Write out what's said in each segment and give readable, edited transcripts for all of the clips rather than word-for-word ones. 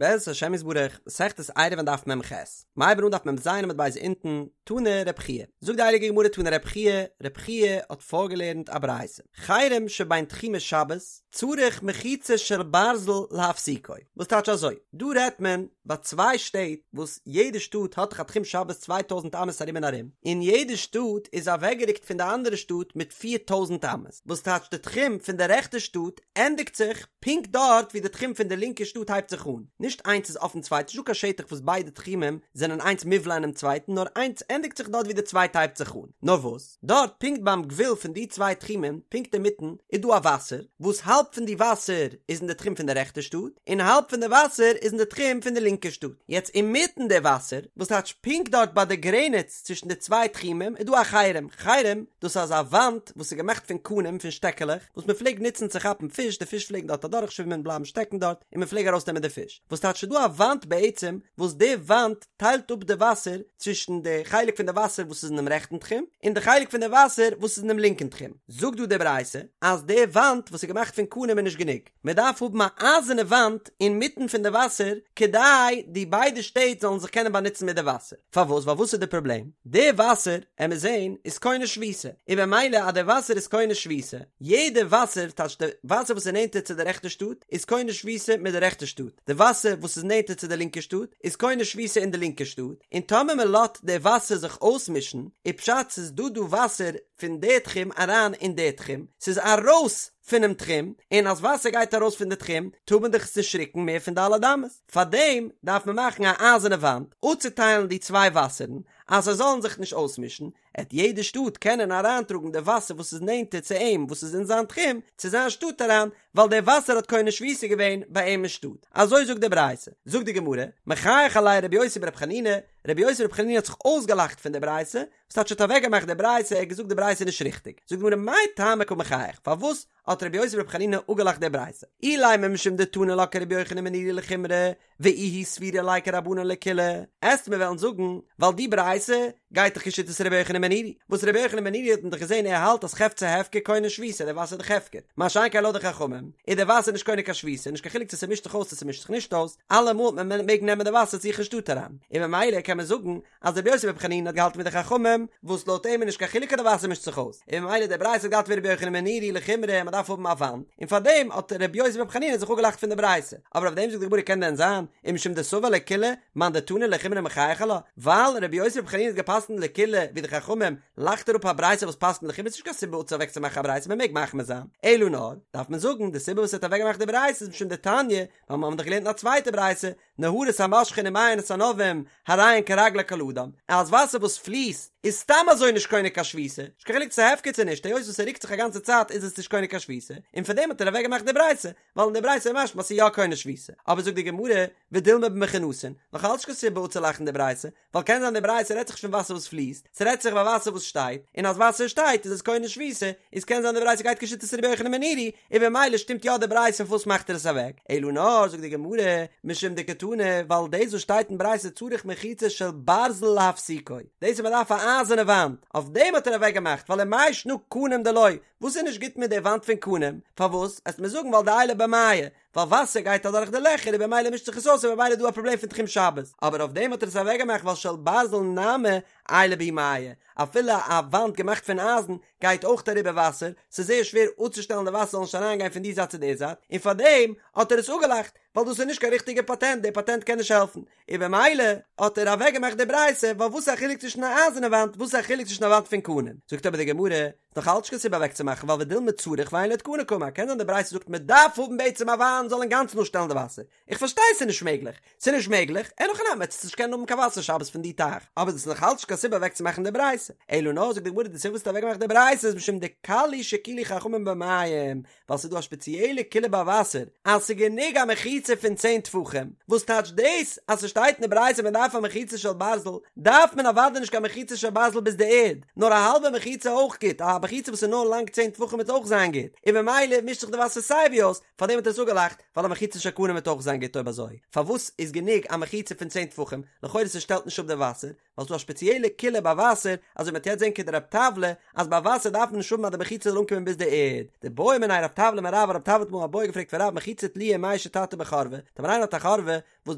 בעזרת השם יתברך, מסכת עירובין דף מ"ח, מ'הייבן אן דף מ"ז עמוד ב' אונטן, תני רב חייא, זאגט די הייליגע גמרא תני רב חייא, רב חייא האט פארגעלערנט א ברייתא, חרם שבין תחומי שבת, צריך מחיצה של ברזל להפסיקו, וואס טייטש אזוי, דא רעדט מען ביי צוויי שטעט וואס יעדע שטאט האט דאך א תחום שבת 2000 אמות ארום און ארום, און יעדע שטאט איז אוועקגערוקט פון די אנדערע שטאט מיט 4000 אמות, וואס טייטש די תחום פון די רעכטע שטאט ענדיגט זיך פונקט דארט ווי די תחום פון די לינקע שטאט הייבט זיך אן, נישט איינס איז אויפן צווייטן, נישטא קיין שטח וואס ביידע תחומים זענען איינס מובלע אינעם צווייטן, נאר איינס ענדיגט זיך דארט ווי די צווייטע הייבט זיך אן. נאר וואס, דארט פונקט ביים גבול פון די צוויי תחומים, פונקט אינמיטן, איז דא א וואסער, וואס האלב פון די וואסער איז אין די תחום פון די רעכטע שטאט, און האלב פון די וואסער איז אין די תחום פון די לינקע שטאט. יעצט אינמיטן די וואסער, וואס טייטש פונקט דארט ביי די גרעניץ צווישן די צוויי תחומים, איז דא א חרם, חרם, דאס איז אזא וואנט וואס איז געמאכט פון קנים, פון שטעקעלעך, וואס מען פלעגט נוצן צו כאפן פיש, די פיש פלעגן דארט אדורכשווימען בלייבן שטעקן דארט, און מען פלעג ארויסנעמען די פיש. וואס טייטש ס'איז דא א וואנט בעצם, וואס די וואנט טיילט אפ די וואסער צווישן די חלק פון די וואסער וואס איז אינעם רעכטן תחום, און די חלק פון די וואסער וואס איז אינעם לינקן תחום. זאגט דא די ברייתא, אז די וואנט וואס איז געמאכט פון קנים איז נישט גענוג, מען דארף האבן א אייזערנע וואנט אינמיטן פון די וואסער, כדי די ביידע שטעט זאלן זיך קענען באנוצן מיט די וואסער. פארוואס? ווייל וואס איז די פראבלעם? די וואסער, עמיר זעהן, איז קונה שביתה, און במילא אז די וואסער איז קונה שביתה, יעדע וואסער, טייטש די וואסער וואס איז נענטער צו די רעכטע שטאט, איז קונה שביתה מיט די רעכטע שטאט, די וואסער וואס איז נענטער צו די לינקע שטאט, איז קונה שביתה אין די לינקע שטאט, און טאמער מען לאזט די וואסער זיך אויסמישן, איז פשט ס'איז דא דא וואסער פון די תחום אריין אין די תחום, ס'איז ארויס פונעם תחום, און אז וואסער גייט ארויס פון די תחום, טאר מען דאך עס נישט רוקן מער פון ד' אמות. פארדעם דארף מען מאכן א אייזערנע וואנט אפצוטיילן די צוויי וואסערן, אז זיי זאלן זיך נישט אויסמישן, עט יעדע שטאט קענען אריינטראגן די וואסער וואס איז נענטער צו אים וואס איז אין זיין תחום, צו זיין שטאט אריין, ווייל דער וואסער האט קונה שביתה געווען ביי אים אין שטאט. אזוי זאגט די ברייתא. זאגט די גמרא, מחייך עליה רבי יוסי ברבי חנינא, רבי יוסי ברבי חנינא האט זיך אויסגעלאכט פון די ברייתא, וואס טייטש האט אוועקגעמאכט די ברייתא, ער האט געזאגט די ברייתא איז נישט ריכטיג. זאגט די גמרא, מאי טעמא קא מחייך, פארוואס האט רבי יוסי ברבי חנינא אפגעלאכט די ברייתא, אילימא משום דתני לה כרבי יוחנן בן נורי לחומרא, ואיהו סבירא ליה כרבנן לקולא, עסט מיר וועלן זאגן, ווייל די ברייתא גייט דאך כשיטת רבי יוחנן בן נורי, וואס רבי יוחנן בן נורי האט מען דאך געזען ער האלט אז חפצי הפקר קונה שביתה, די וואסער איז דאך הפקר, מה שאין כן לויט די חכמים, איז די וואסער נישט קונה קיין שביתה, נישט קיין חילוק צו ס'מישט זיך אויס צו ס'מישט זיך נישט אויס, אלעמאל מען מעג נעמען די וואסער צו זיך אין שטאט אריין, און ממילא קען מען זאגן אז רבי יוסי ברבי חנינא האט געהאלטן ווי די חכמים, וואס לויט אים איז נישט קיין חילוק אז די וואסער מישט זיך אויס, און ממילא די ברייתא האט געהאלטן ווי רבי יוחנן בן נורי לחומרא מען דארף האבן א וואנט, און פארדעם האט רבי יוסי ברבי חנינא זיך אפגעלאכט פון די ברייתא, אבער אויף דעם זאגט די גמרא קען דען זיין, ומשום דסבר לקולא, מאן דתני לחומרא מחייך עלה, ווייל רבי יוסי ברבי חנינא האט געפסקנט לקולא ווי די חכמים, לאכט ער אפ א ברייתא וואס פסקנט לחומרא, ס'נישט קיין סיבה צו אוועקצומאכן א ברייתא מען מעג מחמיר זיין, אלא נאר, דארף מען זאגן, די סיבה וואס ער האט אוועקגעמאכט די ברייתא איז משום דתניא, ווייל מיר האבן דאך געלערנט אין א צווייטע ברייתא, נהרות המושכין ומעיינות הנובעין הרי הן כרגלי כל אדם, אז וואסער וואס פליסט איז סתם אזוי נישט קונה קיין שביתה, נישט קיין חילוק צו ס'איז הפקר צו נישט, היות וואס ס'רוקט זיך א גאנצע צייט איז עס נישט קונה קיין שביתה, און פאר דעם האט ער אוועק געמאכט די ברייתא, ווייל אין די ברייתא איז משמע אז ס'איז יא קונה שביתה, אבער זאגט די גמרא, ודילמא במכונסין, נאך אלץ נישט קיין סיבה אפצולאכן די ברייתא, ווייל קען זיין די ברייתא רעדט זיך נישט פון וואסער וואס פליסט, ס'רעדט זיך ביי וואסער וואס שטייט, און אז וואסער שטייט איז עס קונה שביתה, איז קען זיין די ברייתא גייט כשיטת רבי יוחנן בן נורי, און במילא שטימט יא די ברייתא פארוואס מאכט ער עס אוועק, אלא נאר זאגט די גמרא, משום דקתני, ווייל דאס וואס שטייט אין ברייתא צריך מחיצה של ברזל להפסיקו, דאס אז מ'דארף א אייזערנע וואנט, אויף דעם האט ער אוועק געמאכט, ווייל ומאי שנא קנים דלא, וואס איז נישט גוט מיט די וואנט פון קנים, פארוואס, עסט מיר זאגן ווייל דעיילי ביה מיא, ווייל וואסער גייט אדורך די לעכער און במילא מישט זיך עס אויס און במילא איז דא א פראבלעם פון תחום שבת, אבער אויף דעם האט ער עס אוועקגעמאכט ווייל של ברזל נמי עיילי בהו מיא, אפילו א וואנט געמאכט פון אייזן גייט אויך אריבער וואסער, ס'איז זייער שווער אפצושטעלן די וואסער זאל נישט אריינגיין פון די זייט צו די זייט, און פארדעם האט ער עס אפגעלאכט, ווייל דאס איז נישט קיין ריכטיגע פאטענט, די פאטענט קען נישט העלפן, און במילא האט ער אוועקגעמאכט די ברייתא, ווייל וואס איז א חילוק צווישן א אייזערנע וואנט, וואס איז א חילוק צווישן א וואנט פון קנים, זאגט אבער די גמרא, נאך אלץ נישט קיין סיבה אוועקצומאכן ווייל ודילמא צריך ואין לו תקנה קאמר, קען זיין די ברייתא זאגט מען דארף האבן בעצם א וואנט זאל אינגאנצן אפשטעלן די וואסער, איך פארשטיי ס'איז נישט מעגליך, ס'איז נישט מעגליך, אין הכי נמי עטס נישט קענען האבן קיין וואסער שבת פון די טייך, אבער דאס איז נאך אלץ נישט קיין סיבה אוועקצומאכן די ברייתא, אלא נאר זאגט די גמרא די סיבה וואס האט אוועקגעמאכט די ברייתא איז משום דקל הוא שהקילו חכמים במים, ווייל ס'איז דא א שפעציעלע קולא ביי וואסער אז ס'איז גענוג א מחיצה פון צען טפחים, וואס טייטש דאס אז ס'שטייט אין די ברייתא מען דארף א מחיצה של ברזל, דארף מען אוודאי נישט קיין מחיצה של ברזל ביז די ערד, נאר א האלבע מחיצה אויך גוט, א. מחיצה וואס איז נאר לאנג צען טפחים וועט אויך זיין גוט, און ממילא מישט זיך די וואסער סיי ווי אויס, פארדעם האט ער עס אפגעלאכט, ווייל א מחיצה של קנים וועט אויך זיין גוט אויב אזוי פארוואס איז גענוג א מחיצה פון צען טפחים, לכאורה ס'שטעלט נישט אפ די וואסער, ווייל ס'דא א שפעציעלע קולא ביי וואסער, אזוי מ'וועט יעצט זען כדרב טבלא, אז ביי וואסער דארף מען נישט האבן אז די מחיצה זאל אנקומען ביז די ערד. דבעא מיניה רב טבלא מרב, רב טבלא האט אמאל א בעיא געפרעגט פון רב מחיצה תלויה ומאה שתתא בחורבה, טאמער איינער האט א חורבה, וואס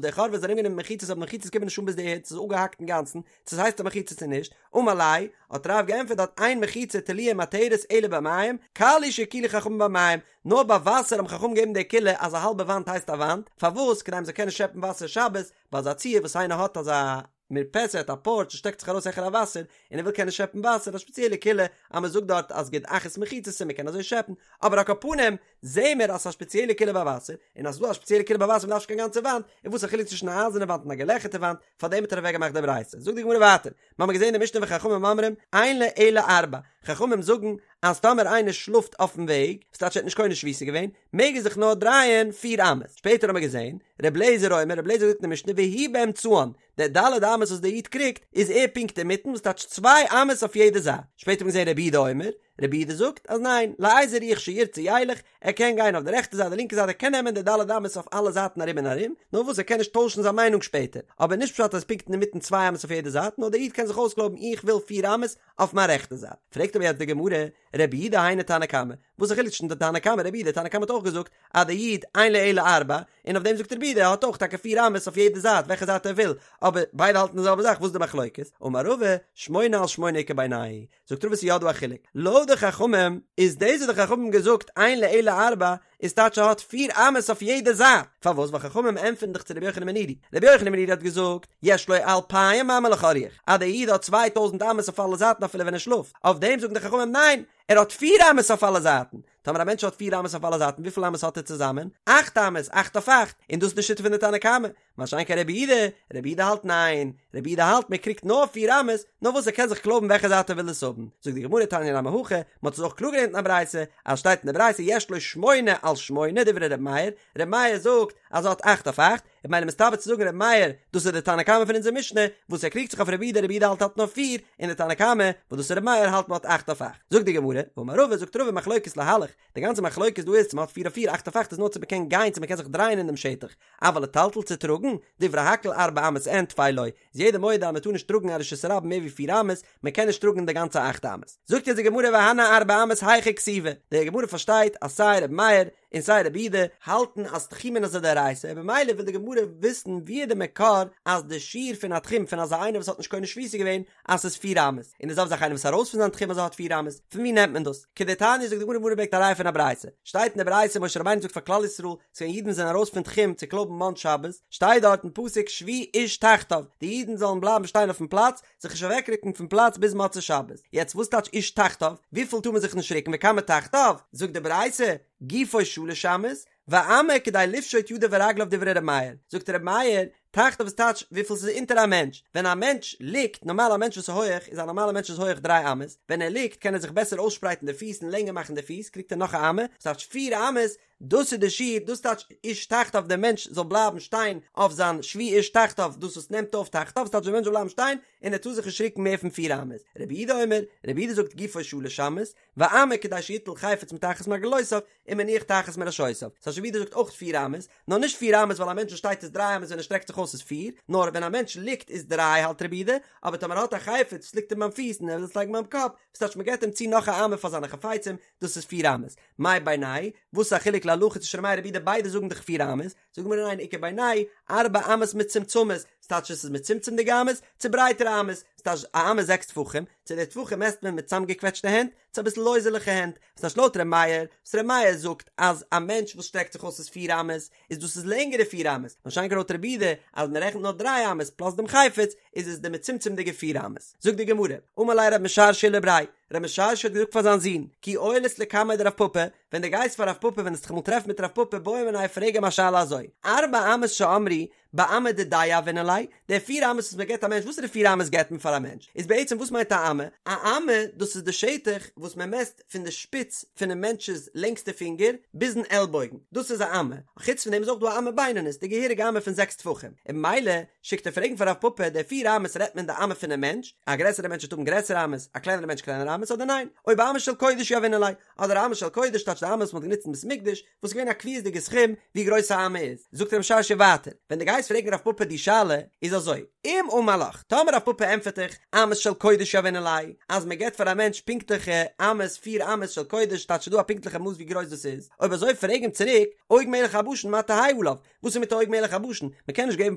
די חורבה איז ארומגענומען מיט מחיצות אבער די מחיצות קומען נישט אן ביז די ערד, ס'איז אפגעהאקט אינגאנצן, צו ס'הייסט א מחיצה צו נישט, אמר ליה, האט רב געענטפערט דארט אין מחיצה תלויה ומתרת אלא במים, קל הוא שהקילו חכמים במים, נאר ביי וואסער האבן חכמים געגעבן די קולא אז א האלבע וואנט הייסט א וואנט, פארוואס? כדי מ'זאל קענען שעפן וואסער שבת, ביי אזא ציור וואס איינער האט אזא מרפסת א פארטש וואס שטעקט זיך ארויס העכער א וואסער און ער וויל קענען שעפן וואסער א שפעציעלע קולא אז מען זאגט דארט אז גוד אחית מחיצתא מען קען אזוי שעפן אבער על כל פנים זעהן מיר אז ס'איז א שפעציעלע קולא ביי וואסער און אז ס'איז דא א שפעציעלע קולא ביי וואסער מ'דארף נישט קיין גאנצע וואנט און וואס איז א חילוק צווישן א אייזערנע וואנט און א געלעכערטע וואנט פארדעם האט ער אוועק געמאכט די ברייתא זאגט די גמרא ווייטער מ'האמיר געזעהן אין די משנה וחכמים אומרים אין לו אלא ארבע חכמים זאגן אז טאמער איינער שלאפט אויפן וועג, ס'טייטש ער האט נישט קונה שביתה געווען, מעג ער זיך נאר דרייען פיר אמות. שפעטער האמיר געזען, ר' לעזער אומר, ר' לעזער זאגט אין די משנה והוא באמצען, די ד' אמות וואס דער איד קריגט, איז ער פונקט אינמיטן, וואס טייטש צוויי אמות אויף יעדע זייט. שפעטער האמיר געזען רבי יהודה אומר, רבי יהודה זאגט אז ניין, לאיזה רוח שירצה ילך, ער קען גיין אויף די רעכטע זייט די לינקע זייט ער קען נעמען די ד' אמות אויף אלע זייטן ארום און ארום, נאר וואס ער קען נישט טוישן זיין מיינונג שפעטער, אבער נישט פשט אז פונקט אינמיטן צוויי אמות אויף יעדע זייט, נאר דער איד קען זיך אויסקלויבן איך וויל פיר אמות, אויף מיין רעכטע זייט. פרעגט אבער יעצט די גמרא, רבי יהודה היינו תנא קמא, וואס איז די חילוק צווישן די תנא קמא רבי יהודה, תנא קמא האט אויך געזאגט אז די איד אין לו אלא ארבע, און אויף דעם זאגט רבי יהודה ער האט אויך טאקע פיר אמות אויף יעדע זייט וועלכע זייט ער וויל, אבער ביידע האלטן די זעלבע זאך וואס איז די מחלוקת? אמר רבא, שמונה על שמונה איכא בינייהו, זאגט רבא ס'איז יא דא א חילוק, לויט די חכמים איז דאס וואס די חכמים האבן געזאגט אין לו אלא ארבע איז טייטש ער האט פיר אמות אויף יעדע זייט, פארוואס? ווייל חכמים ענטפערן דאך צו רבי יוחנן בן נורי, רבי יוחנן בן נורי האט געזאגט, יש לו אלפיים אמה לכל רוח, אז דער איד האט 2000 אמות אויף אלע זייטן אפילו ווען ער שלאפט, אויף דעם זאגן די חכמים ניין, ער האט פיר אמות אויף אלע זייטן, טאמער א מענטש האט פיר אמות אויף אלע זייטן וויפיל אמות האט ער צוזאמען? אכט אמות, אכט אויף אכט, און דאס איז די שיטה פון די תנא קמא, מה שאין כן רבי יהודה, רבי יהודה האלט ניין, רבי יהודה האלט מען קריגט נאר פיר אמות, נאר וואס ער קען זיך קלויבן וועלכע זייט ער וויל עס האבן, זאגט די גמרא תניא נמי הכי, מען האט עס אויך קלאר געלערנט אין א ברייתא, אז שטייט אין די ברייתא יש לו שמונה על שמונה דברי רבי מאיר, רבי מאיר זאגט אז ער האט אכט אויף אכט, איז ממילא מסתבר צו זאגן רבי מאיר, דאס איז די תנא קמא פון אונזער משנה, וואס ער קריגט זיך אויף רבי יהודה, רבי יהודה האלט האט נאר פיר, און די תנא קמא, וואס דאס איז רבי מאיר האלט מען האט אכט אויף אכט. זאגט די גמרא, ואמר רבא, זאגט רבא מחלוקת להלך, די גאנצע מחלוקת דא איז צו מען האט פיר אויף פיר, אכט אויף אכט איז נאר צו מען קען גיין צו מען קען זיך דרייען אין דעם שטח, אבל לטלטל צו טראגן, דברי הכל ארבע אמות אין טפי לא, איז יעדער מודה אז מען טאר נישט טראגן א רשות הרבים מער ווי פיר אמות, מען קען נישט טראגן די גאנצע אכט אמות. זאגט יעצט די גמרא והני ארבע אמות היכא כתיבי, די גמרא פארשטייט אז סיי רבי מאיר און סיי רבי יהודה האלטן אז תחומין איז א דאורייתא, במילא וויל די גמרא וויסן ווי איז די מקור אז די שיעור פון א תחום פון אזא איינער וואס האט נישט קונה שביתה געווען אז ס'איז פיר אמות, און די זעלבע זאך איינער וואס איז ארויס פון זיין תחום אז ער האט פיר אמות, פון ווי נעמט מען דאס? כדתניא זאגט די גמרא, גמרא ברענגט א ראיה פון א ברייתא, שטייט אין די ברייתא משה רבינו זאגט פאר כלל ישראל, ס'געווען אידן זענען ארויס פון תחום צו קלויבן מן שבת, שטייט דארט אין פסוק שבו איש תחתיו, די אידן זאלן בלייבן שטיין אויפן פלאץ, זיך נישט אוועקרוקן פון פלאץ ביז מוצאי שבת, יעצט וואס טייטש איש תחתיו? וויפיל טאר מען זיך נישט רוקן וכמה תחתיו? זאגט די ברייתא, גופו שלש אמות, ואמה כדי לפשוט ידיו ורגליו דברי ר' מאיר, זאגט ר' מאיר, תחתיו איז טייטש וויפיל ס'איז אונטער א מענטש, ווען א מענטש ליגט, נארמאל א מענטש וואס איז הויעך איז א נארמאלע מענטש איז הויעך דריי אמות, ווען ער ליגט קען ער זיך בעסער אויסשפרייטן די פיס און לענגער מאכן די פיס קריגט ער נאך א אמה, וואס טייטש פיר אמות, דאס איז די שיעור, דאס טייטש איש תחתיו דער מענטש זאל בלייבן שטיין אויף זיין שבו איש תחתיו, דאס וואס נעמט אויף תחתיו, וואס טייטש דער מענטש זאל בלייבן שטיין און ער טאר זיך נישט רוקן מער פון פיר אמות, רבי יהודה אומר, רבי יהודה זאגט גופו שלש אמות, ואמה כדי שיטול חפץ מתחת מרגלותיו ומניח תחת מראשותיו. ס'טייטש רבי יהודה זאגט אויך פיר אמות, נאר נישט פיר אמות ווייל א מענטש וואס שטייט איז דריי אמות ווען ער שטרעקט זיך אויס איז פיר, נאר ווען א מענטש ליגט איז דריי האלט רבי יהודה, אבער טאמער ער האט א חפץ וואס ליגט אים ביים פיס און ער וויל עס לייגן ביים קאפ, וואס טייטש מ'געט אים צו נאך א אמה פאר זיינע חפצים, דאס איז פיר אמות. מאי בינייהו? וואס איז א חילוק להלכה צווישן ר' מאיר רבי יהודה ביידע זאגן דאך פיר אמות, זאגט די גמרא ניין איכא בינייהו ארבע אמות מצומצמות, ס'טייטש עס איז מצומצם'דיגע אמות, צו ברייטערע אמות, ס'טייטש א אמה זעקס טפחים, צו די טפחים מעסט מען מיט צאמגעקוועטשטע הענט, צו אביסל לויזעליכע הענט, ס'טייטש לויט ר' מאיר, וואס ר' מאיר זאגט אז א מענטש וואס שטרעקט זיך אויס איז פיר אמות, איז דאס איז לענגערע פיר אמות, מה שאין כן לויט רבי יהודה אז מען רעכנט נאר דריי אמות פלאס דעם חפץ, איז עס די מצומצם'דיגע פיר אמות. זאגט די גמרא, אמר ליה רב משרשיא לבריה, רב משרשיא האט געזאגט פאר זיין זון, כי עיילת לקמיה דרב פפא, ווען דו גייסט פאר רב פפא ווען וועסט דיך אמאל טרעפן מיט רב פפא בעי מיניה פרעג אים א שאלה אזוי, ארבע אמות שאמרו באמה דידיה יהבינן ליה, די פיר אמות וואס מען געבט א מענטש, וואסערע פיר אמות געבט מען פאר א מענטש? איז בעצם וואס מיינט א אמה? א אמה דאס איז די שטח וואס מען מעסט פון די שפיץ פונעם מענטש'ס לענגסטע פינגער ביזן עלבויגן, דאס איז א אמה, חוץ פון דעם איז אויך דא א אמה בינונית, די געהעריגע אמה פון זעקס טפחים, און ממילא שיקט ער פרעגן פאר רב פפא, די פיר אמות רעדט מען די אמה פונעם מענטש, א גרעסערע מענטש וועט האבן גרעסערע אמות, א קלענערע מענטש קלענערע אמות. אמות אדער ניין? או באמה של קודש יהבינן ליה, אדער אמה של קודש טייטש די אמות וואס מ'האט גענוצט אין בית מקדש, וואס איז געווען א קביעות'דיגע סכום ווי גרויס א אמה איז. זאגט רב משרשיא ווייטער, ווען דו גייסט פרעגן רב פפא די שאלה, איז אזוי, אם אמר לך, טאמער רב פפא ענטפערט דיך, אמות של קודש יהבינן ליה, אז מען געבט פאר א מענטש פונקטליכע אמות, פיר אמות של קודש, טייטש ס'איז דא א פונקטליכע מאס ווי גרויס דאס איז, אויב אזוי פרעג אים צוריק, עוג מלך הבשן מה תהא עליו, וואס איז מיט עוג מלך הבשן? מען קען נישט געבן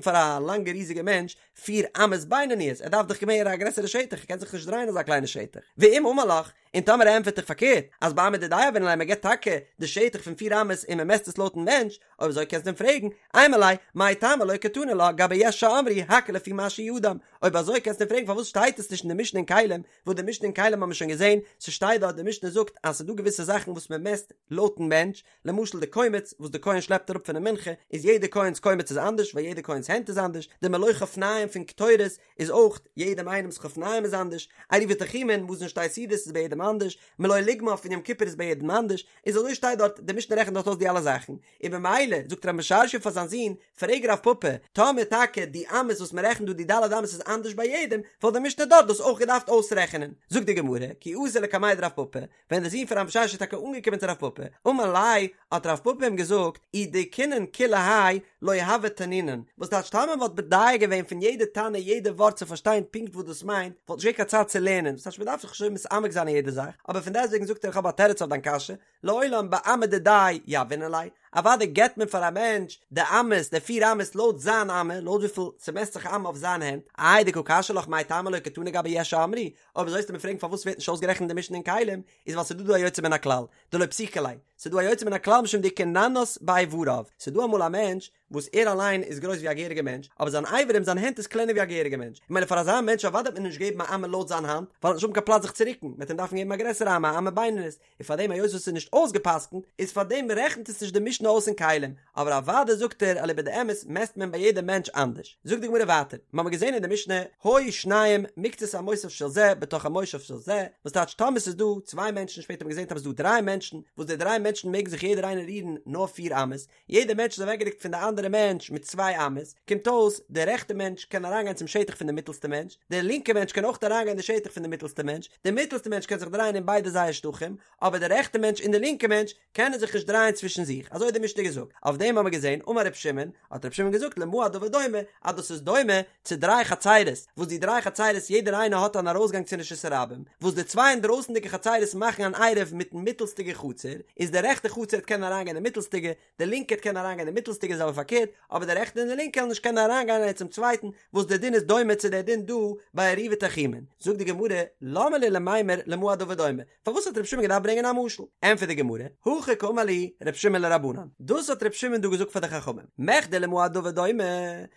פאר א לאנגע ריזיגע מענטש פיר אמות בינוניות, ער דארף דאך מער א גרעסערע שטח, ער קען זיך נישט דרייען אזא קליינע שטח. ואם אמר לך, און טאמער ער ענטפערט דיך פארקערט, אז באמה דידיה יהבינן ליה מען געבט טאקע די שטח פון פיר אמות און מען מעסט עס לויטן מענטש, אויב אזוי קענסטו אים פרעגן, אימא ליה, מאי טעמא לא קתני לה גבי יש שאמרו הכל לפי מה שהוא אדם, אויב אזוי קענסטו אים פרעגן פארוואס שטייט עס נישט אין די משנה אין כלים, וואס די משנה אין כלים האבן מיר שוין געזען, ס'שטייט דארט די משנה זאגט אז ס'דא געוויסע זאכן וואס מען מעסט לויטן מענטש, למשל די קומץ וואס די כהן שלעפט אראפ פונעם מנחה, איז יעדע כהן'ס קומץ איז אנדערש ווייל יעדע כהן'ס הענט איז אנדערש, די מלא חפניים פון קטורת איז אויך יעדעם איינעמ'ס חפניים איז אנדערש, עירובי תחומין, מזון שתי סעודות איז ביי יעדעם אנדערש, מלא לוגמיו פון יום כיפור איז ביי יעדעם אנדערש, איז אזוי שטייט דארט, די משנה רעכנט דארט אויס די אלע זאכן, און במילא זאגט רב משרשיא פאר זיין זון, פרעג רב פפא, טאמער טאקע די אמות וואס מען רעכנט דא די ד' אמות איז אנדערש ביי יעדעם, וואלט די משנה דארט דאס אויך געדארפט אויסרעכענען. זאגט די גמרא, כי אתא לקמיה דרב פפא, ווען דער זון פון רב משרשיא איז טאקע אנגעקומען צו רב פפא, אמר ליה, האט רב פפא אים געזאגט, אי דייקינן כולי האי לא הוה תנינן, וואס טייטש טאמער מ'וואלט מדייק געווען פון יעדע תנא יעדע ווארט צו פארשטיין פונקט וואס דאס מיינט, וואלט נישט געווען קיין צייט צו לערנען, וואס טייטש מ'דארף זיך נישט אזוי מתעמק זיין אין יעדע זאך, אבער פון דעסטוועגן זאגט ער איך האב א תירוץ אויף דיין קשיא, לעולם באמה דידיה יהבינן ליה, אוודאי געבט מען פאר א מענטש די אמות, די פיר אמות לויט זיין אמה, לויט וויפיל ס'מעסט זיך א אמה אויף זיין הענט, איי דקא קשיא לך מאי טעמא לא קתני גבי יש שאמרו, אויב אזוי וועסטו מיר פרעגן פארוואס ווערט נישט אויסגערעכנט די משנה אין כלים, איז ווייל ס'דא דא א יוצא מן הכלל, דלא פסיקא ליה, ס'דא א יוצא מן הכלל משום דאיכא ננס באיבריו, ס'דא אמאל א מענטש וואס ער אליין איז גרויס ווי א געהעריגע מענטש, אבער זיין אברים זיין הענט איז קלענער ווי א געהעריגע מענטש, ממילא פאר אזא מענטש אוודאי וועט מען נישט געבן א אמה לויט זיין האנט, ווייל ער וועט נישט האבן קיין פלאץ זיך צו רוקן, מ'וועט אים דארפן געבן א גרעסערע אמה, א אמה בינונית, און פאר דעם היות וואס ס'איז נישט אויסגעפסקנט, איז פאר דעם רעכנט עס נישט די משנה אויס אין כלים, אבער אוודאי זאגט ער אליבא דאמת מעסט מען ביי יעדע מענטש אנדערש. זאגט די גמרא ווייטער, מ'האמיר געזען אין די משנה, היו שניים מקצת המושב של זה בתוך המושב של זה, וואס טייטש טאמער ס'איז דא צוויי מענטשן, שפעטער האט מען געזען טאמער ס'איז דא דריי מענטשן, וואס די דריי מענטשן מעגן זיך יעדער איינער רירן נאר פיר אמות, יעדער מענטש איז אוועקגערוקט פון די אנדערע מענטש מיט צוויי אמות, קומט אויס, דער רעכטע מענטש קען אריינגיין צום שטח פון די מיטלסטע מענטש, דער לינקע מענטש קען אויך אריינגיין אין די שטח פון די מיטלסטע מענטש, דער מיטלסטע מענטש קען זיך דרייען אין ביידע זייער שטחים, אבער דער רעכטע מענטש און דער לינקע מענטש קענען זיך נישט דרייען צווישן זיך, אזוי האט די משנה געזאגט, אויף דעם האבן מיר געזען, אמר ר' שמעון, האט ר' שמעון געזאגט למה הדבר דומה, אז דאס איז דומה צו דריי חצירות, וואס די דריי חצירות יעדער איינע האט אן ארויסגאנג צו רשות הרבים, וואס די צוויי אינדרויסנדיגע חצירות מאכן אן עירוב מיטן מיטלסטיגע חצר, איז די רעכטע חצר וועט קענען אריינגיין אין מיטלסטיגע, די לינקע וועט קענען אריינגיין אין מיטלסטיגע זעלבע פארקערט, אבער די רעכטע און די לינקע וועלן נישט קענען אריינגיין איינער צום צווייטן, וואס די דין איז דומה צו די דין דא ביי עירובי תחומין. זאגט די גמרא, למה לי למימר למה הדבר דומה? פארוואס האט רבי שמעון געדארפט ברענגען א משל? ענטפערט די גמרא, הכי קאמר להו רבי שמעון לרבנן, דאס האט רבי שמעון דא געזאגט פאר די חכמים, מכדי למה הדבר דומה,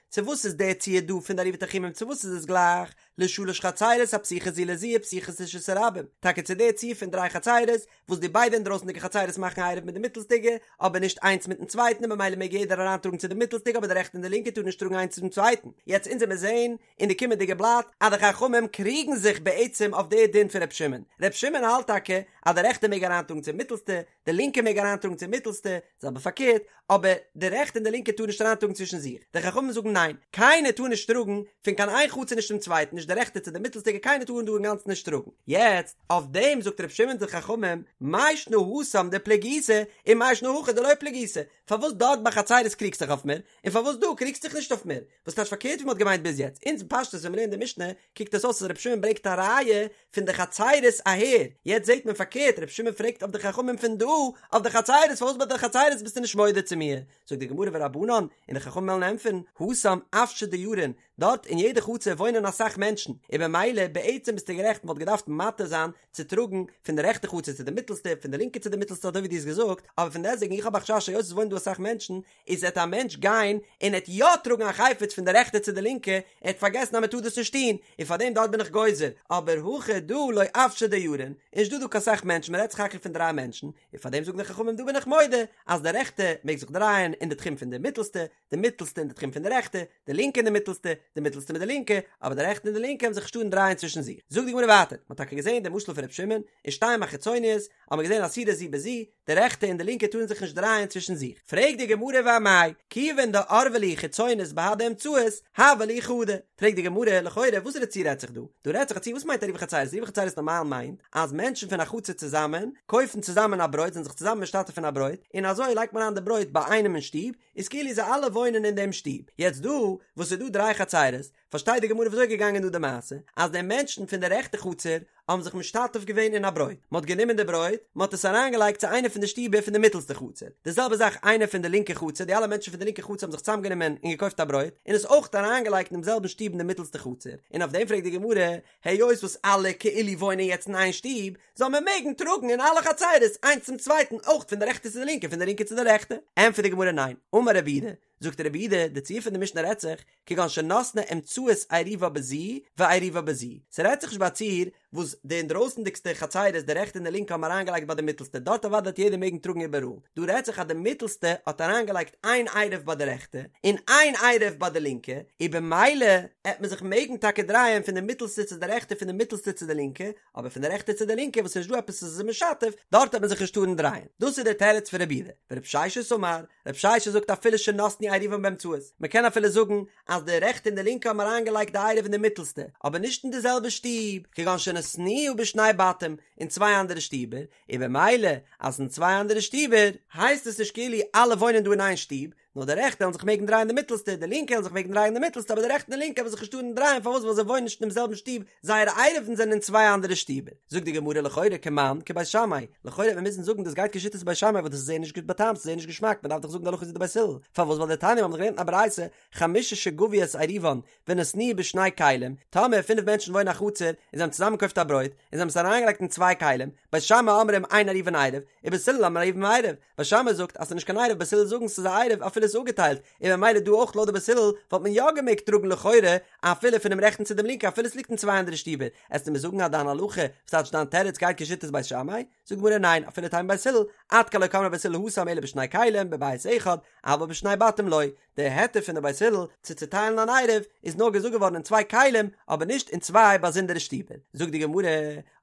צו וואס איז דער ציור דא פון די עירובי תחומין צו וואס איז עס גלייך, לשלש חצירות הפתוחות זו לזו ופתוחות לרשות הרבים, טאקע צו דער ציור פון דריי חצירות, וואס די ביידע אינדרויסנדיגע חצירות מאכן עירוב מיט די מיטלסטיגע, אבער נישט איינס מיטן צווייטן און ממילא מעג יעדער אריינטראגן צו די מיטלסטיגע אבער די רעכטע און די לינקע טארן נישט טראגן איינס צום צווייטן. יעצט אונז וועמיר זעהן אין די קומענדיגע בלאט אז די חכמים קריגן זיך בעצם אויף די דין פון ר' שמעון. ר' שמעון האלט טאקע אז די רעכטע מעג אריינטראגן צום מיטלסטע, די לינקע מעג אריינטראגן צום מיטלסטע, זעלבע פארקערט, אבער די רעכטע און די לינקע טארן נישט אריינטראגן צווישן זיך. די חכמים זאגן ניין, קיינער טאר נישט טראגן פון קיין איין חצר נישט צום צווייטן, נישט די רעכטע צו די מיטלסטיגע, קיינער טאר דא אינגאנצן נישט טראגן. יעצט, אויף דעם זאגט ר' שמעון צו די חכמים, מאי שנא התם דפליגיתו, און מאי שנא הכא דלא פליגיתו, פארוואס דארט ביי חצירות קריגסט זיך אויף מיר, און פארוואס דא קריגסט זיך נישט אויף מיר? וואס טייטש פארקערט ווי מ'האט געמיינט ביז יעצט? אונז פשטות ווען מ'לערנט די משנה קוקט עס אויס אז רבי שמעון ברענגט א ראיה פון די חצירות אהער, יעצט זעט מען פארקערט רבי שמעון פרעגט אויף די חכמים פון דא אויף די חצירות פארוואס ביי די חצירות ביסטו נישט מודה צו מיר? זאגט די גמרא ורבנן, און די חכמים וועלן ענטפערן, התם אוושי דיירין, דארט אין יעדע חצר וואוינען אסאך מענטשן, און במילא בעצם ביסטו גערעכט מ'וואלט געדארפט מתיר זיין צו טראגן פון די רעכטע חצר צו די מיטלסטע, פון די לינקע צו די מיטלסטע אזוי ווי דו האסט געזאגט, אבער פון דעסטוועגן איך האב א חשש היות עס וואוינען דא אסאך מענטשן, איז עט א מענטש גיין און עט יא טראגן א חפץ פון די רעכטע צו די לינקע, ער עט פארגעסן אז מען טאר דאס נישט טון, און פאר דעם דארט בין איך גוזר, אבער הכא דא לא אוושי דיירין, איז נישט דא דא קיין סאך מענטשן מען רעדט סך הכל פון דריי מענטשן, און פאר דעם זאגן די חכמים דא בין איך מודה אז די רעכטע מעג זיך דרייען אין די תחום פון די מיטלסטע, די מיטלסטע אין די תחום פון די רעכטע, די לינקע אין די מיטלסטע, די מיטלסטע מיט די לינקע, אבער די רעכטע און די לינקע וועלן זיך נישט טארן דרייען צווישן זיך. זאגט די גמרא ווייטער, מען האט טאקע געזען די משל פון ר' שמעון, ושתים החיצוניות, האט מען געזען אסורות זו בזו, די רעכטע און די לינקע טארן זיך נישט דרייען צווישן זיך. פרעגט די גמרא ואמאי, כיוון דערבי להו חיצונות בהדי אמצעית, הוה להו חדא. פרעגט די גמרא, לכאורה וואסערע ציור רעדט זיך דא? דא רעדט זיך א ציור, וואס מיינט עירובי חצירות? עירובי חצירות נארמאל מיינט אז מענטשן פון א חצר צוזאמען קויפן צוזאמען א ברויט, זענען זיך צוזאמען משתתף אין א ברויט, און אזוי לייגט מען אריין די ברויט ביי איינעם אין שטוב, איז כאילו זיי אלע וואוינען אין דעם שטוב. יעצט דא וואס ס'איז דא דריי חצירות, פארשטייט די גמרא וויאזוי איז געגאנגען דא די מעשה, אז די מענטשן פון די רעכטע חצר האבן זיך משתתף געווען אין א ברויט, מען האט גענומען די ברויט, מען האט עס אריינגעלייגט צו איינע פון די שטיבער פון די מיטעלסטע חצר, די זעלבע זאך איינער פון די לינקע חצר, די אלע מענטשן פון די לינקע חצר האבן זיך צוזאמגענומען און געקויפט א ברויט, און עס אויך אריינגעלייגט אינעם זעלבן שטוב אין די מיטעלסטע חצר, און אויף דעם פרעגט די גמרא, היות וואס אלע כאילו וואוינען יעצט אין איין שטוב, זאל מען מעגן טראגן אין אלע חצרות איינס צום צווייטן אויך פון די רעכטע צו די לינקע פון די לינקע צו די רעכטע? ענטפערט די גמרא ניין, אמר רב יהודה, זאגט רב יהודה, די ציור פון די משנה רעדט זיך, כגון שנתנה אמצעית עירובה בזו ועירובה בזו, ס'רעדט זיך נישט ביי א ציור וואס די אינדרויסנדיגסטע חצרות די רעכטע און די לינקע האבן אריינגעלייגט ביי די מיטלסטע, דארט אוודאי וועט יעדער מעגן טראגן איבעראל, דא רעדט זיך אז די מיטלסטע האט אריינגעלייגט איין עירוב ביי די רעכטע און איין עירוב ביי די לינקע, און במילא עט מען זיך מעגן טאקע דרייען פון די מיטלסטע צו די רעכטע פון די מיטלסטע צו די לינקע, אבער פון די רעכטע צו די לינקע וואס ס'נישט דא עפעס וואס איז משתף, דארט וועט מען זיך נישט טארן דרייען. דאס איז דער תירוץ פון רב יהודה. ורב ששת אמר, רב ששת זאגט אפילו שנתנו עירובן באמצעית, מען קען אפילו זאגן אז די רעכטע און די לינקע האבן אריינגעלייגט די עירוב אין די מיטלסטע, אבער נישט אין די זעלבע שטוב, כגון שנתנוה בשני בתים, אין צוויי אנדערע שטיבער, און במילא אז אין צוויי אנדערע שטיבער, הייסט עס נישט כאילו אלע וואוינען דא אין איין שטוב, נאר די רעכטע וועלן זיך מעגן דרייען די מיטלסטע, די לינקע וועלן זיך מעגן דרייען די מיטלסטע, אבער די רעכטע און די לינקע וועלן זיך נישט טארן דרייען, פארוואס? ווייל זיי וואוינען נישט אינעם זעלבן שטוב, זייערע עירובין זענען אין צוויי אנדערע שטיבער. זאגט די גמרא לכאורה כמאן כבית שמאי, לכאורה וועט מען מוזן זאגן דאס גייט כשיטת בית שמאי ווייל דאס איז זייער נישט גוט באטעמט, ס'איז זייער נישט געשמאק, מען דארף דאך זאגן די הלכה איז ווי די בית הלל, פארוואס? ווייל דתניא מיר האבן דאך געלערנט אין א ברייתא, חמשה שגבו את עירובן ונתנוהו בשני כלים, טאמער פינף מענטשן וואוינען א חצר און זיי האבן צוזאמען געקויפט א ברויט און זיי האבן עס אריינגעלייגט אין צוויי כלים, בית שמאי אומרים אין עירובן עירוב, ובית הלל אומרים עירובן עירוב, בית שמאי זאגט אז ס'איז נישט קיין עירוב בית הלל זאגן ס'איז א עירוב אפילו ס'איז אפגעטיילט, און ממילא דא אויך לויט די בית הלל וואלט מען יא געמעגט טראגן לכאורה אפילו פונעם רעכטן צו דעם לינקן אפילו ס'ליגט אין צוויי אנדערע שטיבער, עסטו מיר זאגן אז דיין הלכה, וואס טייטש דיין תירוץ גייט כשיטת בית שמאי? זאגט די גמרא ניין אפילו תימא בית הלל, עד כאן לא קאמרי בית הלל התם אלא בשני כלים בבית אחד, אבל בשני בתים לא, די היתר פון די בית הלל צו צוטיילן אן עירוב איז נאר געזאגט געווארן אין צוויי כלים אבער נישט אין צוויי באזונדערע שטיבער, זאגט די גמרא,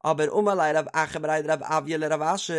אבער אמר ליה רב אחא בריה דרב אויא לרב אשי,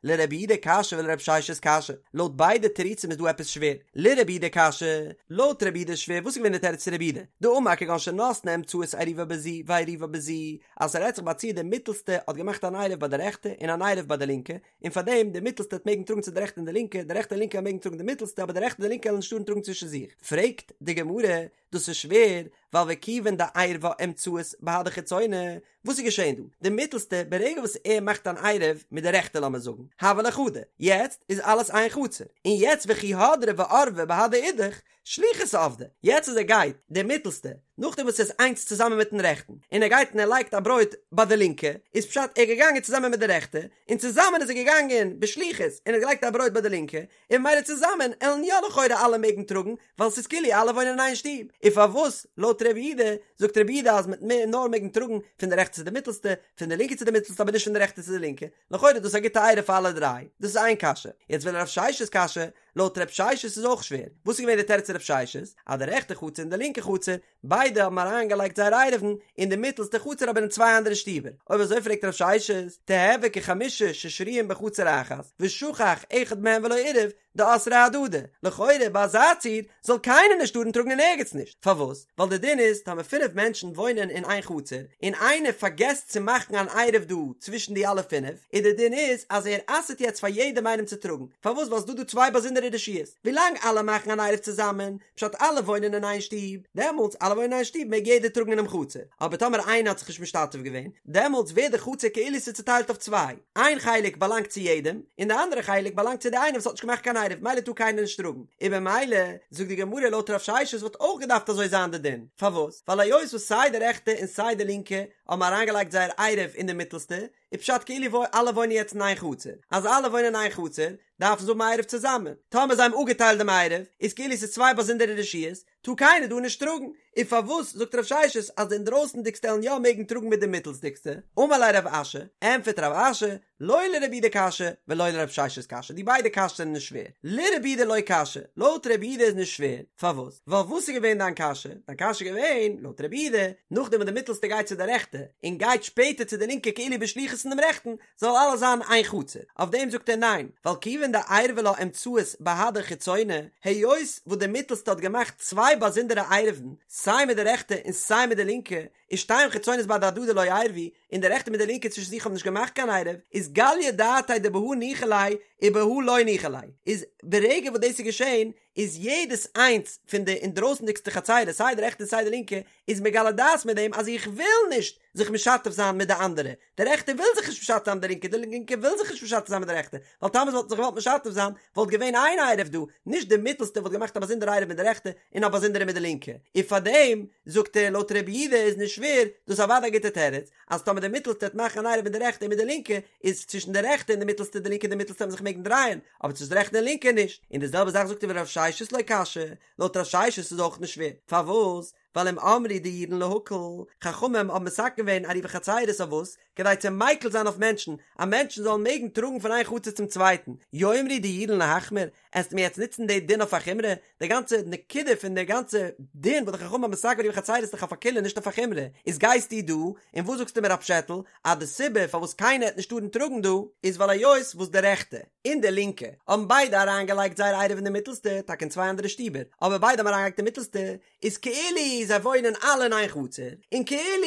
לרב יהודה קשיא ולרב ששת קשיא, לויט ביידע תירוצים איז דא עפעס שווער, לרב יהודה קשיא, לויט רב יהודה איז שווער, וואס איז געווען די תירוץ צו רב יהודה? דאמר כגון שנתנה אמצעית עירובה בזו ועירובה בזו, אז ס'רעדט זיך ביי א ציור די מיטלסטע האט געמאכט אן עירוב ביי די רעכטע און אן עירוב ביי די לינקע, און פאר דעם די מיטלסטע וועט מעגן טראגן צו די רעכטע און די לינקע, די רעכטע און לינקע מעגן טראגן די מיטלסטע אבער די רעכטע און די לינקע וועלן נישט טארן טראגן צווישן זיך. פרעגט די גמרא, דאס איז שווער, ווייל וכיוון דעירבה אמצעית בהדי חיצונה, וואס איז געשען דא? די מיטלסטע, ברגע וואס ער מאכט אן עירוב מיט די רעכטע לאמיר זאגן, הוה ליה חדא, יעצט איז אלעס איין חצר, און יעצט וכי הדרי וערבי בהדי אידך, שליחות עבדי, יעצט אז ער גייט, די מיטלסטע, נאכדעם וואס ער איז איינס צוזאמען מיטן רעכטן, און ער גייט און ער לייגט א ברויט ביי די לינקע, איז פשט ער איז געגאנגען צוזאמען מיט די רעכטע, און צוזאמען איז ער געגאנגען בשליחות און האט געלייגט א ברויט ביי די לינקע, און ממילא צוזאמען עלן יא לכאורה אלע מעגן טראגן, ווייל ס'איז כאילו אלע וואוינען אין איין שטוב. און פארוואס לויט רב יהודה, זאגט רב יהודה אז מ'עט נאר מעגן טראגן פון די רעכטע צו די מיטלסטע, פון די לינקע צו די מיטלסטע אבער נישט פון די רעכטע צו די לינקע, לכאורה איז דאס א גוטע עירוב פאר אלע דריי. דאס איז איין קשיא. יעצט ולרב ששת קשיא, לויט רב ששת איז אויך שווער. וואס איז געווען די תירוץ צו רב ששת? אז די רעכטע חצר און די לינקע חצר, ביידע האבן אריינגעלייגט זייער עירובין אין די מיטלסטע חצר אבער אין צוויי אנדערע שטיבער. אויב אזוי פרעגט רב ששת, תיהוי כחמשה ששרויין בחצר אחת, ושכח אחד מהן ולא עירב, דאסרי אהדדי. לכאורה ביי אזא ציור זאל קיינער נישט טארן טראגן אין ערגעץ נישט. פארוואס? ווייל די דין איז טאמער פינף מענטשן וואוינען אין איין חצר, און איינער פארגעסט צו מאכן אן עירוב דא צווישן די אלע פינף, און די דין איז אז ער אסר'ט יעצט פאר יעדעם איינעם צו טראגן. פארוואס? ווייל ס'דא דא צוויי באזונדערע רשויות. ווילאנג אלע מאכן אן עירוב צוזאמען, פשט אלע וואוינען אין איין שטוב, דעמאלטס אלע וואוינען אין איין שטוב מעג יעדער טראגן אינעם חצר, אבער טאמער איינער האט זיך נישט משתתף געווען, דעמאלטס ווערט די חצר כאילו ס'איז צוטיילט אויף צוויי, איין חלק באלאנגט צו יעדעם, און די אנדערע חלק באלאנגט צו די איינער וואס האט נישט געמאכט קיין עירוב, מילא טאר קיינער נישט טראגן, און במילא זאגט די גמרא לויט רב ששת וואלט אויך געדארפט אזוי זיין די דין, פארוואס? ווייל היות וואס סיי די רעכטע און סיי די לינקע האבן אריינגעלייגט זייער עירוב אין די מיטעלסטע, איז פשט כאילו אלע וואוינען יעצט אין איין חצר, אז אלע וואוינען אין איין חצר, דארפן זיי האבן א עירוב צוזאמען, טאמער זיי האבן אפגעטיילט דעם עירוב, איז כאילו ס'איז צוויי באזונדערע רשויות, טאר קיינער דא נישט טראגן, און פארוואס זאגט רב ששת אז די אינדרויסנדיגסטע עלן יא מעגן טראגן מיט די מיטלסדיגסטע? אמר ליה רב אשי, ענטפערט רב אשי, לא לרב יהודה קשיא ולא לרב ששת קשיא, די ביידע קשיות זענען נישט שווער, לרב יהודה לא קשיא, לויט רב יהודה איז נישט שווער, פארוואס? ווייל וואס איז געווען דיין קשיא? דיין קשיא איז געווען, לויט רב יהודה, נאכדעם וואס די מיטלסטע גייט צו די רעכטע, און גייט שפעטער צו די לינקע כאילו בשליחות פון דעם רעכטן, זאל אלעס זיין איין חצר. אויף דעם זאגט ער ניין, ווייל כיוון דעירבה לה אמצעית בהדי חיצונה, היות וואס די מיטלסטע האט געמאכט צוויי באזונדערע עירובין, סיי מיט די רעכטע און סיי מיט די לינקע, ושתים חיצונות בהדי הדדי לא עירבו, און די רעכטע מיט די לינקע צווישן זיך האבן נישט געמאכט קיין עירוב, איז גליא דעתיה דבהא ניחא ליה ובהא לא ניחא ליה, איז ברגע וואס דאס איז געשען, איז יעדעס איינס פון די אינדרויסנדיגסטע חצירות סיי די רעכטע און סיי די לינקע איז מגלה דעת מיט דעם אז איך וויל נישט זיך משתף זיין מיט די אנדערע, די רעכטע וויל זיך נישט משתף זיין מיט די לינקע, די לינקע וויל זיך נישט משתף זיין מיט די רעכטע, ווייל טאמער זיי וואלטן זיך געוואלט משתף זיין וואלט געווען איין עירוב דא, נישט די מיטלסטע וואלט געמאכט א באזונדערע עירוב מיט די רעכטע און א באזונדערע מיט די לינקע, און פארדעם זאגט ער לויט רבי יהודה איז נישט שווער, דאס איז אוודאי א גוטע תירוץ, אז טאמער די מיטלסטע וועט מאכן אן עירוב מיט די רעכטע און מיט די לינקע, איז צווישן די רעכטע און די מיטלסטע די לינקע און די מיטלסטע וועלן זיך מעגן דרייען, אבער צווישן די רעכטע און לינקע נישט, און די זעלבע זאך זאגט ער ורב ששת לא קשיא, לויט רב ששת איז אויך נישט שווער, פארוואס? ווייל אם אמרו דאירן להקל, חכמים האבן מתקן געווען עירובי חצירות אויף וואס? כדי צו מיקל זיין אויף מענטשן, אז מענטשן זאלן מעגן טראגן פון איין חצר צום צווייטן, יאמרו דאירן להחמיר, עסט מיר יעצט נוצן די דין אויף א חומרא? די גאנצע נקודה פון די גאנצע דין וואס די חכמים האבן מתקן געווען עירובי חצירות איז דאך אויף א קולא נישט אויף א חומרא, איז גייסטו דא און וואס זאגסטו מיר א פשעטל אז די סיבה פארוואס קיינער העט נישט טארן טראגן דא איז ווייל היות וואס די רעכטע און די לינקע האבן ביידע אריינגעלייגט זייער עירוב אין די מיטלסטע, טאקע אין צוויי אנדערע שטיבער, אבער ביידע האבן אריינגעלייגט אין מיטלסטע, איז כאילו זיי וואוינען אלע אין איין חצר, און כאילו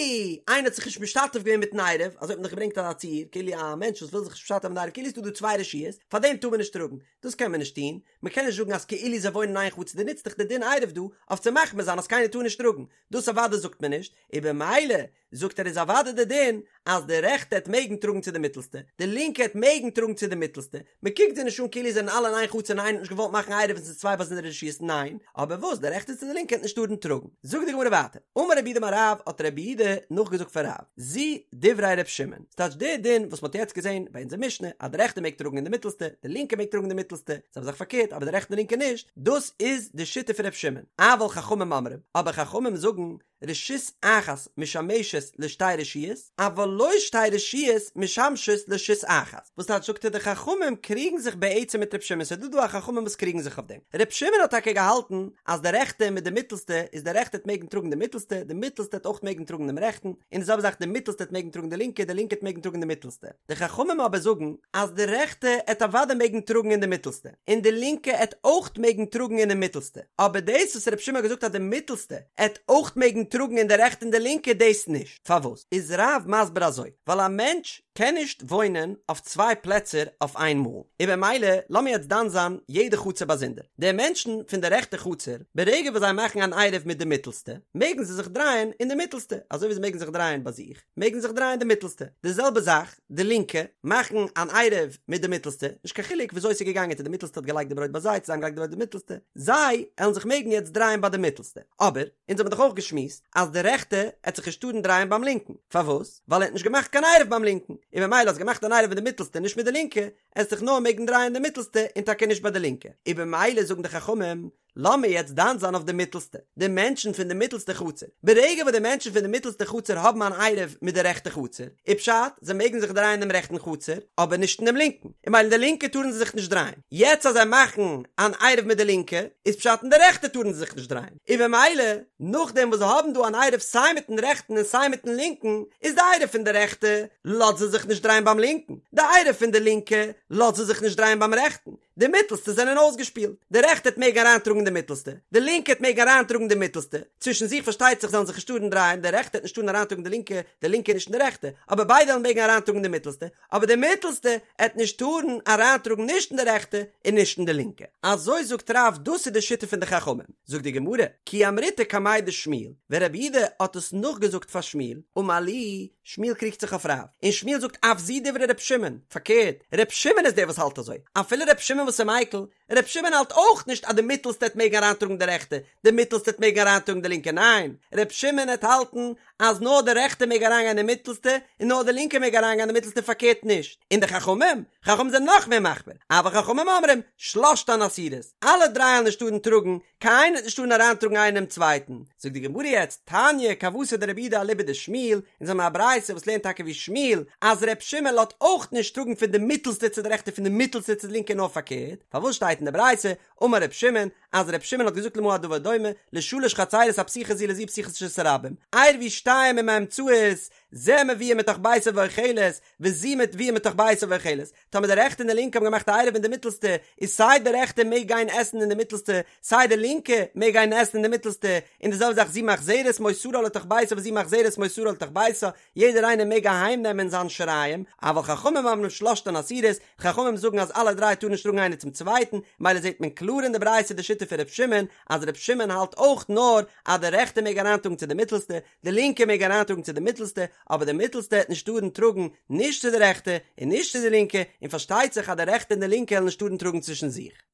איינער האט זיך נישט משתתף געווען מיטן עירוב, אזוי האט מען דאך געברענגט אזא ציור, כאילו א מענטש וואס וויל זיך נישט משתתף מיטן עירוב, כאילו איז דא דא צוויי רשויות, פאר דעם טאר מען נישט טראגן, דאס קען מען נישט טון, מען קען נישט זאגן אז כאילו זיי וואוינען אין איין חצר, דו נוצט דאך די דין עירוב דא אויף צו מחמיר זיין אז קיינער טאר נישט טראגן, דאס אוודאי זאגט מען נישט, און במילא זאגט ער איז אוודאי די דין אז די רעכטע העט מעגן טראגן צו די מיטעלסטע, די לינקע העט מעגן טראגן צו די מיטעלסטע, מען קוקט זיי נישט אן כאילו זיי זענען אלע אין איין חצר און איינער האט נישט געוואלט מאכן עירוב און ס'איז צוויי באזונדערע רשויות ניין, אבער וואס די רעכטע צו די לינקע העט נישט טארן טראגן. זאגט די גמרא ווייטער, אמר רב יהודה אמר רב האט רב יהודה נאכגעזאגט פון רב, זו דברי ר' שמעון, ס'טייטש די דין וואס מ'האט יעצט געזען ביי אונזער משנה אז די רעכטע מעג טראגן אין די מיטעלסטע, די לינקע מעג טראגן אין די מיטעלסטע, זעלבע זאך פארקערט אבער די רעכטע און לינקע נישט, דאס איז די שיטה פון ר' שמעון, אבל חכמים אומרים, אבער חכמים זאגן רשות אחת משמשת לשתי רשויות, אבל לא שתי רשויות משמשות לרשות אחת. וואס טייטש זאגט ער די חכמים קריגן זיך בעצם מיט ר' שמעון ס'איז דא דא א חכמים וואס קריגן זיך אויף דעם. ר' שמעון האט טאקע געהאלטן אז די רעכטע מיט די מיטלסטע איז די רעכטע העט מעגן טראגן די מיטלסטע, די מיטלסטע העט אויך מעגן טראגן דעם רעכטן, און די זעלבע זאך די מיטלסטע העט מעגן טראגן די לינקע, די לינקע העט מעגן טראגן די מיטלסטע. די חכמים אבער זאגן אז די רעכטע העט אוודאי מעגן טראגן אין די מיטלסטע, און די לינקע העט אויך מעגן טראגן אינעם מיטלסטע, אבער דאס וואס ר' שמעון האט געזאגט אז די מיטלסטע עט אויך מעגן טראגן אין די רעכטע און די לינקע דאס נישט. פארוואס איז רב מסביר אזוי? ווייל א מענטש קען נישט וואוינען אויף צוויי פלעצער אויף איין מאל, און במילא לאמיר יעצט דן זיין יעדע חצר באזונדער. די מענטשן פון די רעכטע חצר, ברגע וואס זיי מאכן אן עירוב מיט די מיטלסטע, מעגן זיי זיך דרייען אין די מיטלסטע, אזוי ווי זיי מעגן זיך דרייען ביי זיך, מעגן זיך דרייען די מיטלסטע. די זעלבע זאך די לינקע, מאכן אן עירוב מיט די מיטלסטע, נישט קיין חילוק וויאזוי ס'איז געגאנגען צו די מיטלסטע האט געלייגט די ברויט ביי זיי צו זיי האבן געלייגט די ברויט ביי די מיטלסטע, זיי עלן זיך מעגן יעצט דרייען ביי די מיטלסטע. אבער, אונז האבן דאך אויך געשמועסט אז די רעכטע עט זיך נישט טארן דרייען ביים לינקן. פארוואס? ווייל ער האט נישט געמאכט קיין עירוב ביים לינקן, און במילא האסט געמאכט אן עירוב מיט די מיטלסטע נישט מיט די לינקע, עסט זיך נאר מעגן דרייען די מיטלסטע און טאקע נישט ביי די לינקע. און במילא זאגן די חכמים, לאמיר יעצט דן זיין אויף די מיטלסטע, די מענטשן פון די מיטלסטע חצר. ברגע וואס די מענטשן פון די מיטלסטע חצר האבן אן עירוב מיט די רעכטע חצר, איז פשט, זיי מעגן זיך דרייען אין דעם רעכטן חצר, אבער נישט אין דעם לינקן. און במילא אין די לינקע טארן זיי זיך נישט דרייען. יעצט אז זיי מאכן אן עירוב מיט די לינקע, איז פשט אין די רעכטע טארן זיי זיך נישט דרייען. און במילא, נאכדעם וואס זיי האבן דא אן עירוב סיי מיטן רעכטן און סיי מיטן לינקן, איז די עירוב פון די רעכטע לאזט זיי זיך נישט דרייען ביים לינקן, די עירוב פון די לינקע לאזט זיי זיך נישט דרייען ביים רעכטן. די מיטלסטע זענען אויסגעשפילט. די רעכטע העט מעגן אריינטראגן די מיטלסטע, די לינקע העט מעגן אריינטראגן די מיטלסטע, צווישן זיך פארשטייט זיך זאלן זיך נישט טארן דרייען, די רעכטע העט נישט טארן אריינטראגן די לינקע, די לינקע נישט אין די רעכטע, אבער ביידע וועלן מעגן אריינטראגן די מיטלסטע, אבער די מיטלסטע העט נישט טארן אריינטראגן נישט אין די רעכטע און נישט אין די לינקע. אזוי זאגט רב דאס איז די שיטה פון די חכמים. זאגט די גמרא, כי אמריתה קמיה דשמואל, ווען רב יהודה האט עס נאכגעזאגט פאר שמואל, אמר להו, שמואל קריגט זיך אויף רב, און שמואל זאגט אף זו דברי ר' שמעון, פארקערט, ר' שמעון איז דער וואס האלט אזוי, אפילו ר' שמעון. שמעון וואס איז מיקל? ר' שמעון האלט אויך נישט אז די מיטעלסטע העט מעגן אריינטראגן די רעכטע, די מיטעלסטע העט מעגן אריינטראגן די לינקע, ניין, ר' שמעון העט האלטן אז נאר די רעכטע מעג אריינגיין אין די מיטעלסטע און נאר די לינקע מעג אריינגיין אין די מיטעלסטע פארקערט נישט, און די חכמים? חכמים זענען נאך מער מחמיר, אבל חכמים אומרים, שלשתן אסורות, אלע דריי וועלן נישט טארן טראגן, קיין איינער וועט נישט טארן אריינטראגן איינער אינעם צווייטן. זאגט די גמרא יעצט, תניא כוותיה דרבי יהודה אליבא דשמואל, אונז האבן א ברייתא וואס לערנט טאקע ווי שמואל, אז ר' שמעון לאזט אויך נישט טראגן פון די מיטלסטע צו די רעכטע פון די מיטלסטע צו די לינקע נאר פארקערט, פארוואס שטייט אין די ברייתא, אמר ר' שמעון, אז ר' שמעון האט געזאגט למה הדבר דומה, לשלש חצירות הפתוחות זו לזו ופתוחות לרשות הרבים, עירבו שתיים עם האמצעית, זה מביאה מתוך ביתה ואוכלת, וזו מביאה מתוך ביתה ואוכלת, טאמער די רעכטע און די לינקע האבן געמאכט א עירוב אין די מיטלסטע, איז סיי די רעכטע מעג גיין עסן אין די מיטלסטע, סיי די לינקע מעג גיין עסן אין די מיטלסטע, און די זעלבע זאך זו מחזרת מותרה לתוך ביתה וזו מחזרת מותרה לתוך ביתה, יעדער איינער מעג אהיים נעמען זיין שיריים, אבל חכמים אומרים שלשתן אסורות, חכמים זאגן אז אלע דריי טארן נישט טראגן איינער צום צווייטן, מילא זעט מען קלאר אין די ברייתא די שיטה פון ר' שמעון, אז ר' שמעון האלט אויך נאר אז די רעכטע מעג אריינטראגן צו די מיטלסטע, די לינקע מעג אריינטראגן צו די מיטלסטע, אבער די מיטלסטע העט נישט טארן טראגן נישט צו די רעכטע און נישט צו די לינקע, און פארשטייט זיך אז די רעכטע און די לינקע העלן נישט טארן טראגן צווישן זיך.